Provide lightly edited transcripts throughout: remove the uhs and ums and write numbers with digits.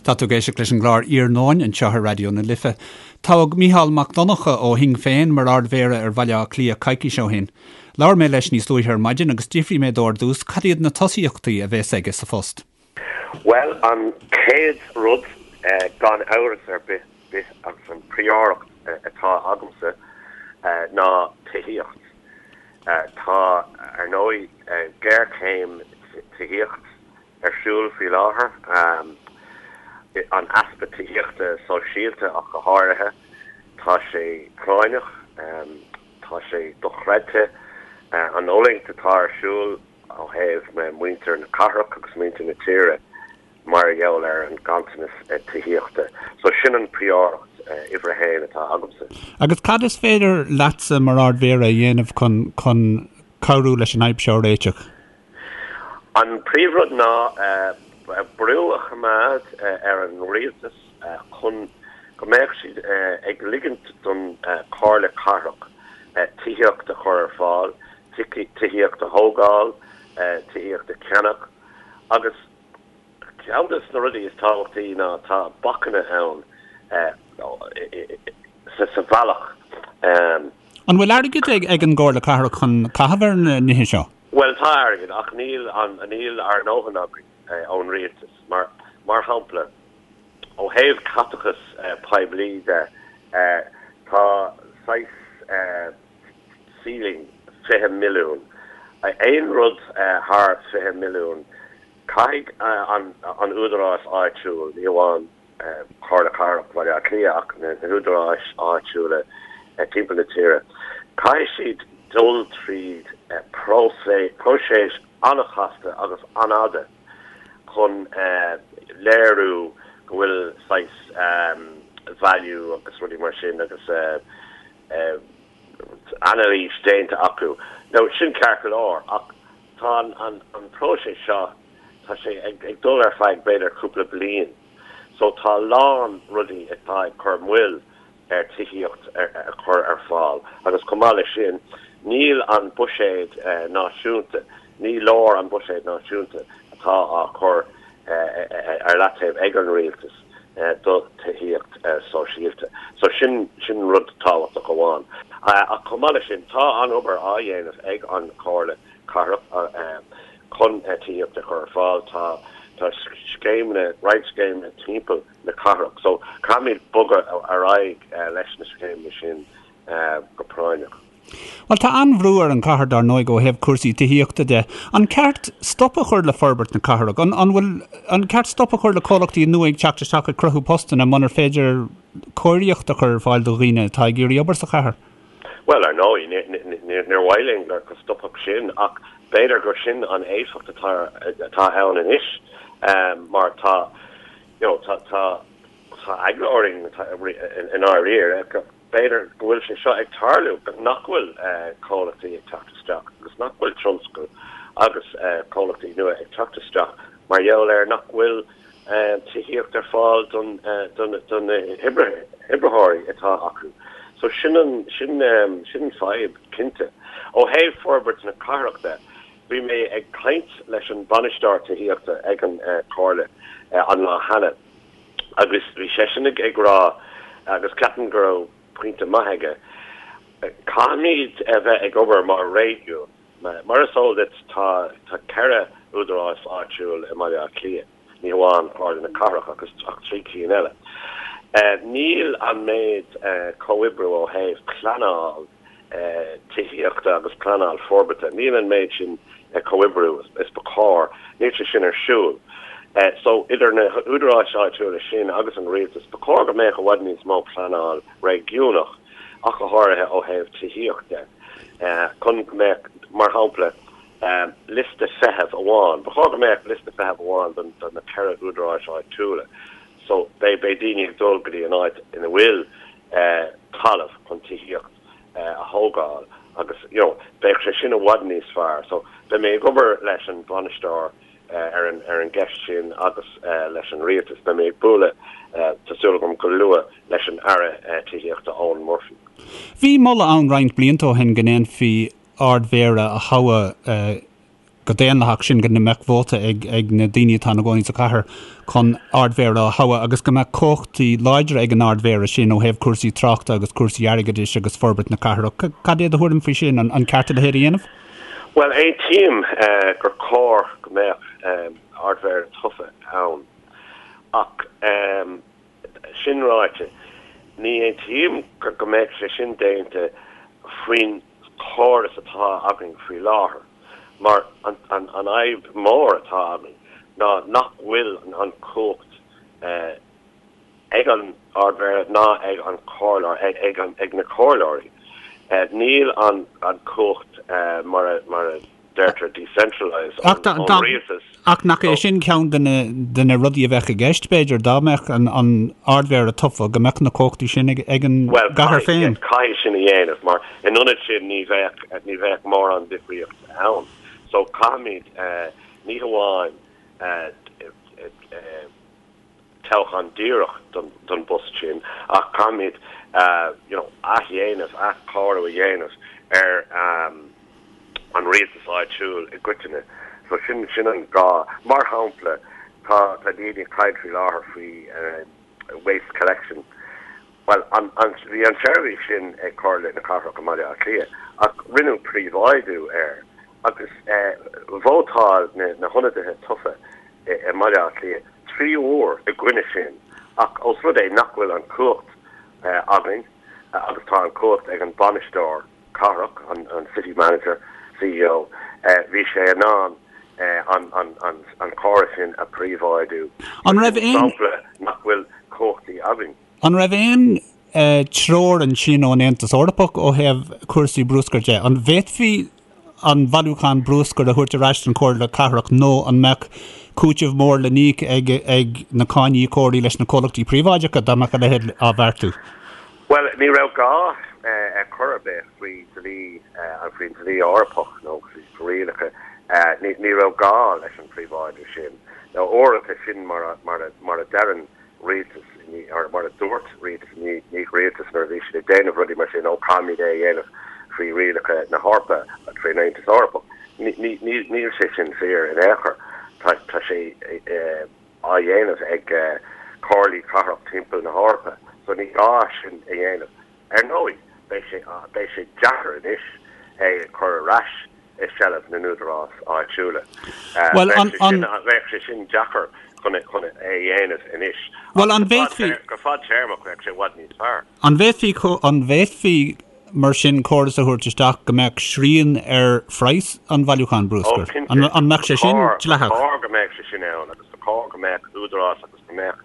Tá tú ag éisteacht leis an gclár Iarnóin anseo ar Raidió na Life. Toghadh Mícheál Mac Donncha ó Shinn Féin mar Ard-Mhéara ar Bhaile Átha Cliath coicís ó shin. Labhair mé leis níos luaithe ar maidin agus d'fhiafraigh mé dó ar dtús cad iad na tosaíochtaí a bheas aige sa phost. Bhuel, an chéad rud, gan amhras ar bith, bith agus an phríóireacht atá agamsa ná tithíocht. Tá, ar ndóigh, géarchéim tithíocht ar siúl faoi láthair, an easpa tithíochta sóisialta ach go háirithe. Tá sé práinneach, tá sé dochreidte an fhulaingt atá ar siúl ó thaobh muintir na cathrach agus muintir na tíre mar gheall ar an ganntanas tithíochta. So sin an phríóireacht uimhir a haon atá agamsa. Agus cad is féidir leatsa mar Ard-Mhéara a dhéanamh chun chun cabhrú leis an fhadhb seo a réiteach? An príomhrud ná brú a choimeád ar an rialtas chun go mbeadh siad ag ligint don Chomhairle Cathrach tithíocht a chur ar fáil, tithíocht a thógáil, tithíocht a cheannach agus Ceann de na rudaí is tábhachtaí ná tá bacanna ann sa bhealach. An bhfuil airgead ag an gComhairle Cathrach chun caitheamh ar na nithe seo? Bhuel, tá airgead ach níl níl ár ndóthain againn ón rialtas. Mar mar shampla, ó thaobh caiteachas poiblí de, tá saghas ceiling 20 milliún. Aon rud thar 20 milliún, caithfidh an údarás áitiúil, ní amháin Comhairle Cathrach Bhaile Átha Cliath ach na húdaráis áitiúla timpeall na tíre, caithfidh siad dul tríd próiseas an-chasta agus an-fhada chun léiriú go bhfuil saghas value agus rudaí mar sin agus anailís déanta acu. Now sin ceart go leor ach tá an próiseas seo, tá sé ag dul ar feadh b'fhéidir cúpla bliain. So tá a lán rudaí atá ag cur moill ar tithíocht a chur ar fáil agus chomh maith leis sin níl an buiséad náisiúnta, ní leor an buiséad náisiúnta atá á chur ar leataobh ag an rialtas. do tithíocht sóisialta. So sin, sin rud tábhachtach amháin. Ach chomh maith leis sin, tá an-obair á dhéanamh ag an Chomhairle Cathrach chun tithíocht a chur ar fáil. Tá, tá scéimeanna, roinnt scéimeanna timpeall na cathrach. So caithfimid bogadh ar aghaidh leis na scéimeanna sin go práinneach. Bhuel, tá an-bhrú ar an chathair, dar ndóigh, ó thaobh cúrsaí tithíochta de. An ceart stop a chur le forbairt na cathrach? An, an bhfuil, an ceart stop a chur le comhlachtaí nua ag teacht isteach ag cruthú postanna munar féidir cóiríocht a chur ar fáil do dhaoine atá ag iarraidh obair sa chathair? Bhuel, ar ndóigh, níor mhaith linn go stopfadh sin ach b'fhéidir gur sin an éifeacht atá, atá ann anois mar tá, you know, tá, tá, tá eagla orainn i ndáiríre go. B'fhéidir go bhfuil sé seo ag tarlú, nach bhfuil comhlachtaí ag teacht isteach agus nach bhfuil tionscal agus comhlachtaí nua ag teacht isteach mar gheall ar nach bhfuil tithíocht ar fáil don do na hoibritheoirí atá acu. So sin an sin sin an fadhb cinnte. Ó thaobh forbairt na cathrach de, bhí mé ag caint leis an bainisteoir tithíochta ag an Comhairle an lá cheana. Agus bhí seisean ag rá, agus ceapaim go raibh pointe maith aige, caithfimid a bheith ag obair mar réigiún. Mar is eol duit, tá 4 údarás áitiúil i mBaile Átha Cliath, ní hamháin Comhairle na Cathrach ach 3 cinn eile. Níl an méid comhoibriú ó thaobh pleanáil tithíochta agus pleanáil forbartha. Níl an méid sin comhoibriú is ba chóir, níl sé sin ar siúl. So, idir na húdaráis áitiúla sin agus an rialtas, ba chóir go mbeadh i bhfad níos mó pleanáil réigiúnach, ach go háirithe ó thaobh tithíocht de, chun go mbeadh, mar shampla, liosta feithimh amháin. Ba chóir go mbeadh liosta feithimh amháin do na 4 údaráis áitiúla. So, beidh daoine ag dul go dtí an áit ina bhfuil talamh chun tithíocht a thógáil agus you know bheadh sé sin i bhfad níos fearr. So beidh mé ag obair leis an bhainisteoir ar an ar an gceist sin agus leis an rialtas. Beidh mé ag bualadh, tá súil agam go luath, leis an Aire Tithíochta Eoghan Murphy. Bhí moladh ann roinnt blianta ó shin go ndéanfaí Ard-Mhéara a thoghadh. go daonlathach, sin go mbeadh vóta ag ag na daoine atá ina gcónaí sa chathair chun Ardmhéara a thoghadh agus go mbeadh cumhachtaí láidre ag an Ardmhéara sin ó thaobh cúrsaí tráchta agus cúrsaí airgeadais agus forbairt na cathrach. Cad é do thuairim faoi sin? An ceart a leithéid a dhéanamh? Bhuel, aontaím gur chóir go mbeadh Ardmhéara tofa ann ach sin ráite, ní aontaím go mbeadh sé sin déanta faoin chóras atá againn faoi láthair mar an fhadhb mhór atá againn ná nach bhfuil an chumhacht ag an Ardmhéara ná ag an chomhairleoir, ag na comhairleoirí. Níl an chumhacht mar a deirtear decentralised ón rialtas. Ach nach é sin ceann de na rudaí a bheadh i gceist, b'fhéidir, dá mbeadh an Ardmhéara tofa, go mbeadh na cumhachtaí sin ag an gcathair féin? Bhuel, caithfidh sin a dhéanamh mar in ionad sin ní bheadh, ní bheadh mórán difríocht ann. So caithfimid ní hamháin toghchán díreach don bpost sin ach caithfimid you know athdhéanamh, athchóiriú a dhéanamh ar an rialtas áitiúil i gcoitinne. So sin, sin an gá. Mar shampla, tá, tá daoine ag caint faoi láthair faoi waste collection. Bhuel, an, an, bhí an tseirbhís sin ag Comhairle na Cathrach i mBaile Átha Cliath ach rinneadh príobháidiú air agus vótáil na, na hionadaithe tofa i mBaile Átha Cliath 3 uair i gcoinne sin ach ós rud é nach bhfuil an chumhacht againn agus tá an chumhacht ag an bainisteoir cathrach, an City Manager, CEO, bhí sé in ann an córas sin a phríobháidiú. An raibh aon. Sampla nach bhfuil cumhachtaí againn. An raibh aon treoir ansin ón Aontas Eorpach ó thaobh cúrsaí bruscair de? An bhféadfaí an bailiúchán bruscair a thabhairt ar ais don Chomhairle Cathrach nó an mbeadh cúiteamh mór le n-íoc ag ag na cáiníocóirí leis na comhlachtaí príobháideacha dá mbeadh a leithéid á bheartú? Bhuel, ní raibh gá ar chor ar bith faoi dhlí, faoin dlí Eorpach nó faoi rialacha, ní raibh gá leis an phríobháidiú sin. Nó uaireanta sin mar a, mar a, mar a deireann rialtas, mar a dúirt rialtas i ndiaidh rialtas nuair a bhí siad ag déanamh rudaí mar sin, ó caithfimid é a dhéanamh faoi rialacha na hEorpa, faoin Aontas Eorpach. Níl sé sin fíor in aon chor. Tá sé á dhéanamh ag comhairlí cathrach timpeall na hEorpa, so ní gá sin a dhéanamh. Ar ndóigh, beidh sé, beidh sé deacair anois é a chur ar ais i seilbh na n-údarás áitiúla. Bhuel, an, an. Bheadh sé sin deacair chun, chun é a dhéanamh anois. Bhuel, an bhféadfaí. Go fadtéarmach, bheadh sé i bhfad níos fearr. An bhféadfaí, an bhféadfaí mar sin córas a thabhairt isteach go mbeadh srian ar phraghas an bhailiúcháin bruscair? Ó, cinnte. An, an mbeadh sé sin dleathach? Ba chóir go mbeadh sé sin ann agus ba chóir go mbeadh údarás agus go mbeadh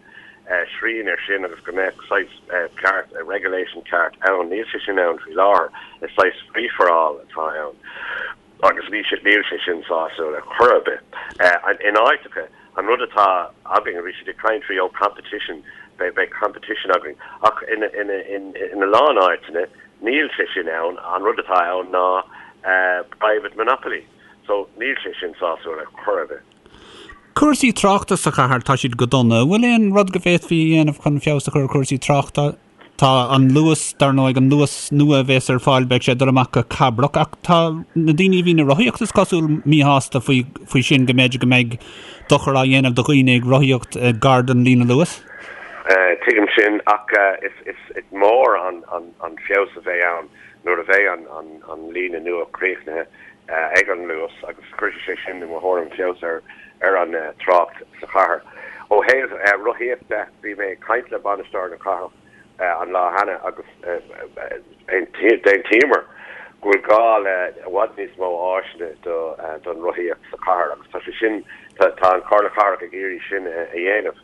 srian air sin agus go mbeadh saghas ceart, regulation ceart ann. Níl sé sin ann faoi láthair. Is saghas free for all atá ann agus níl sé, níl sé sin sásúil ar chor ar bith. In áiteacha, an rud atá againn, bhí siad ag caint faoi, oh competition, beidh, beidh competition againn ach in, in, in, in a lán áiteanna níl sé sin ann. An rud atá ann ná private monopoly. So níl sé sin sásúil ar chor ar bith. Cúrsaí tráchta sa chathair, tá siad go dona. An bhfuil aon rud go bhféadfaí a dhéanamh chun feabhas a chur ar chúrsaí tráchta? Tá an Luas, dar ndóigh, an Luas nua a bhéas ar fáil, beidh sé ag dul amach go Cabrach, ach tá na daoine a bhíonn ag rothaíocht, is cosúil, míshásta faoi, faoi sin, go mb'fhéidir go mbeidh dochar á dhéanamh do dhaoine ag rothaíocht gar don líne Luas. Tuigim sin, ach is, is, is mór an, an, an feabhas a bheidh ann nuair a bheidh an, an, an líne nua críochnaithe. ag an Luas agus cuirfidh sé sin, i mo thuairim, feabhas ar an trácht sa chathair. Ó thaobh rothaíocht de, bhí mé ag caint le bainisteoir na cathrach an lá cheana agus d'aontaíomar go bhfuil gá le i bhfad níos mó áiseanna don rothaíocht sa chathair agus tá sé sin, tá an Chomhairle Cathrach ag iarraidh sin a dhéanamh.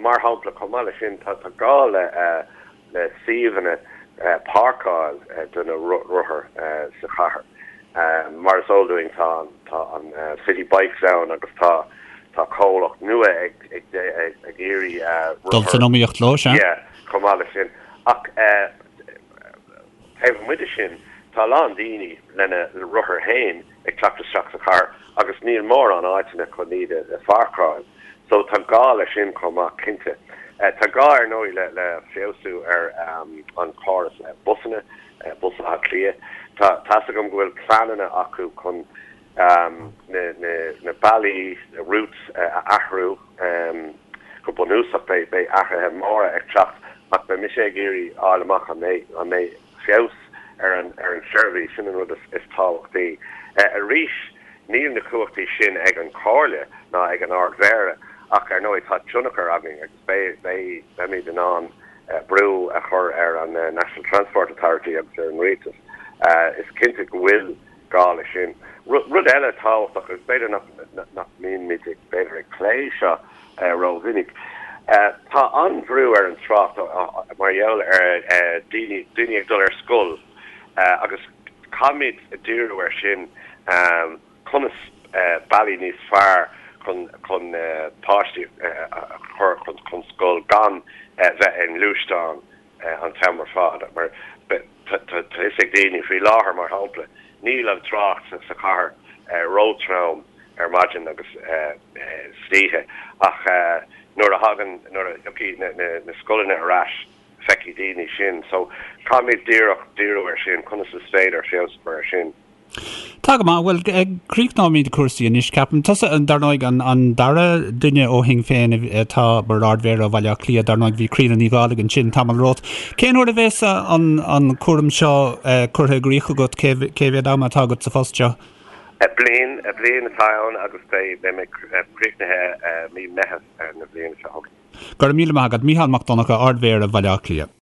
Mar shampla, chomh maith leis sin, tá gá le le suíomhanna páirceáil do na rothair sa chathair. Mar is eol dúinn tá tá an City Bikes ann agus tá tá comhlacht nua ag ag ag iarraidh Dul san iomaíocht leo, sea. Yeah, chomh maith leis sin. Ach taobh amuigh de sin, tá a lán daoine lena rothair féin ag teacht isteach sa chathair agus níl mórán áiteanna chun iad a pháirceáil. So tá gá leis sin chomh maith, cinnte. Tá gá ar ndóigh le le feabhsú ar an chóras busanna, Bus Átha Cliath. Tá tá's agam go bhfuil pleananna acu chun. Na bealaí, na routes, a athrú go bunúsach. Beidh athruithe móra ag teacht ach beidh mise ag iarraidh fháil amach an mbeidh feabhas ar an seirbhís, sin an rud is tábhachtaí. Arís, níl na cumhachtaí sin ag an Chomhairle ná ag an Ard-Mhéara ach ar ndóigh tá tionchar againn agus beidh, beimid in ann brú a chur ar an National Transport Authority agus ar an Rialtas. Is cinnte go bhfuil gá leis sin. Rud eile tábhachtach, agus b'fhéidir nach mbímid ag, b'fhéidir, ag plé seo rómhinic, tá an-bhrú ar an trácht mar gheall ar daoine, daoine ag dul ar scoil agus caithfimid díriú air sin, conas bealaí níos fearr chun chun páistí a chur chun scoil gan bheith i ngluaisteán an t-am ar fad. Mar tá a fhios ag daoine faoi láthair, mar shampla, níl an trácht sa chathair róthrom ar maidin agus san oíche ach nuair a thagann, nuair a thiocfaidh na scoileanna ar ais, feicfidh daoine sin. So caithfimid díreach díriú air sin, conas is féidir feabhas a chur air sin. Tá go maith. Bhuel, críochnóimid cúrsaí anois, ceapaim. Tusa, dar ndóigh, an dara duine ó Shinn Féin atá mar Ard-Mhéara Bhaile Átha Cliath, dar ndóigh, bhí Críona Ní Dhálaigh ansin tamall romhat. Cén uair a bheas an cúram seo curtha i gcrích agat? Cé mhéad ama atá agat sa phost seo? Bliain, bliain atá ann agus beidh mé críochnaithe mí Meitheamh na bliana seo chugainn. Go raibh míle maith agat, Mícheál Mac Donncha, Ard-Mhéara Bhaile Átha Cliath.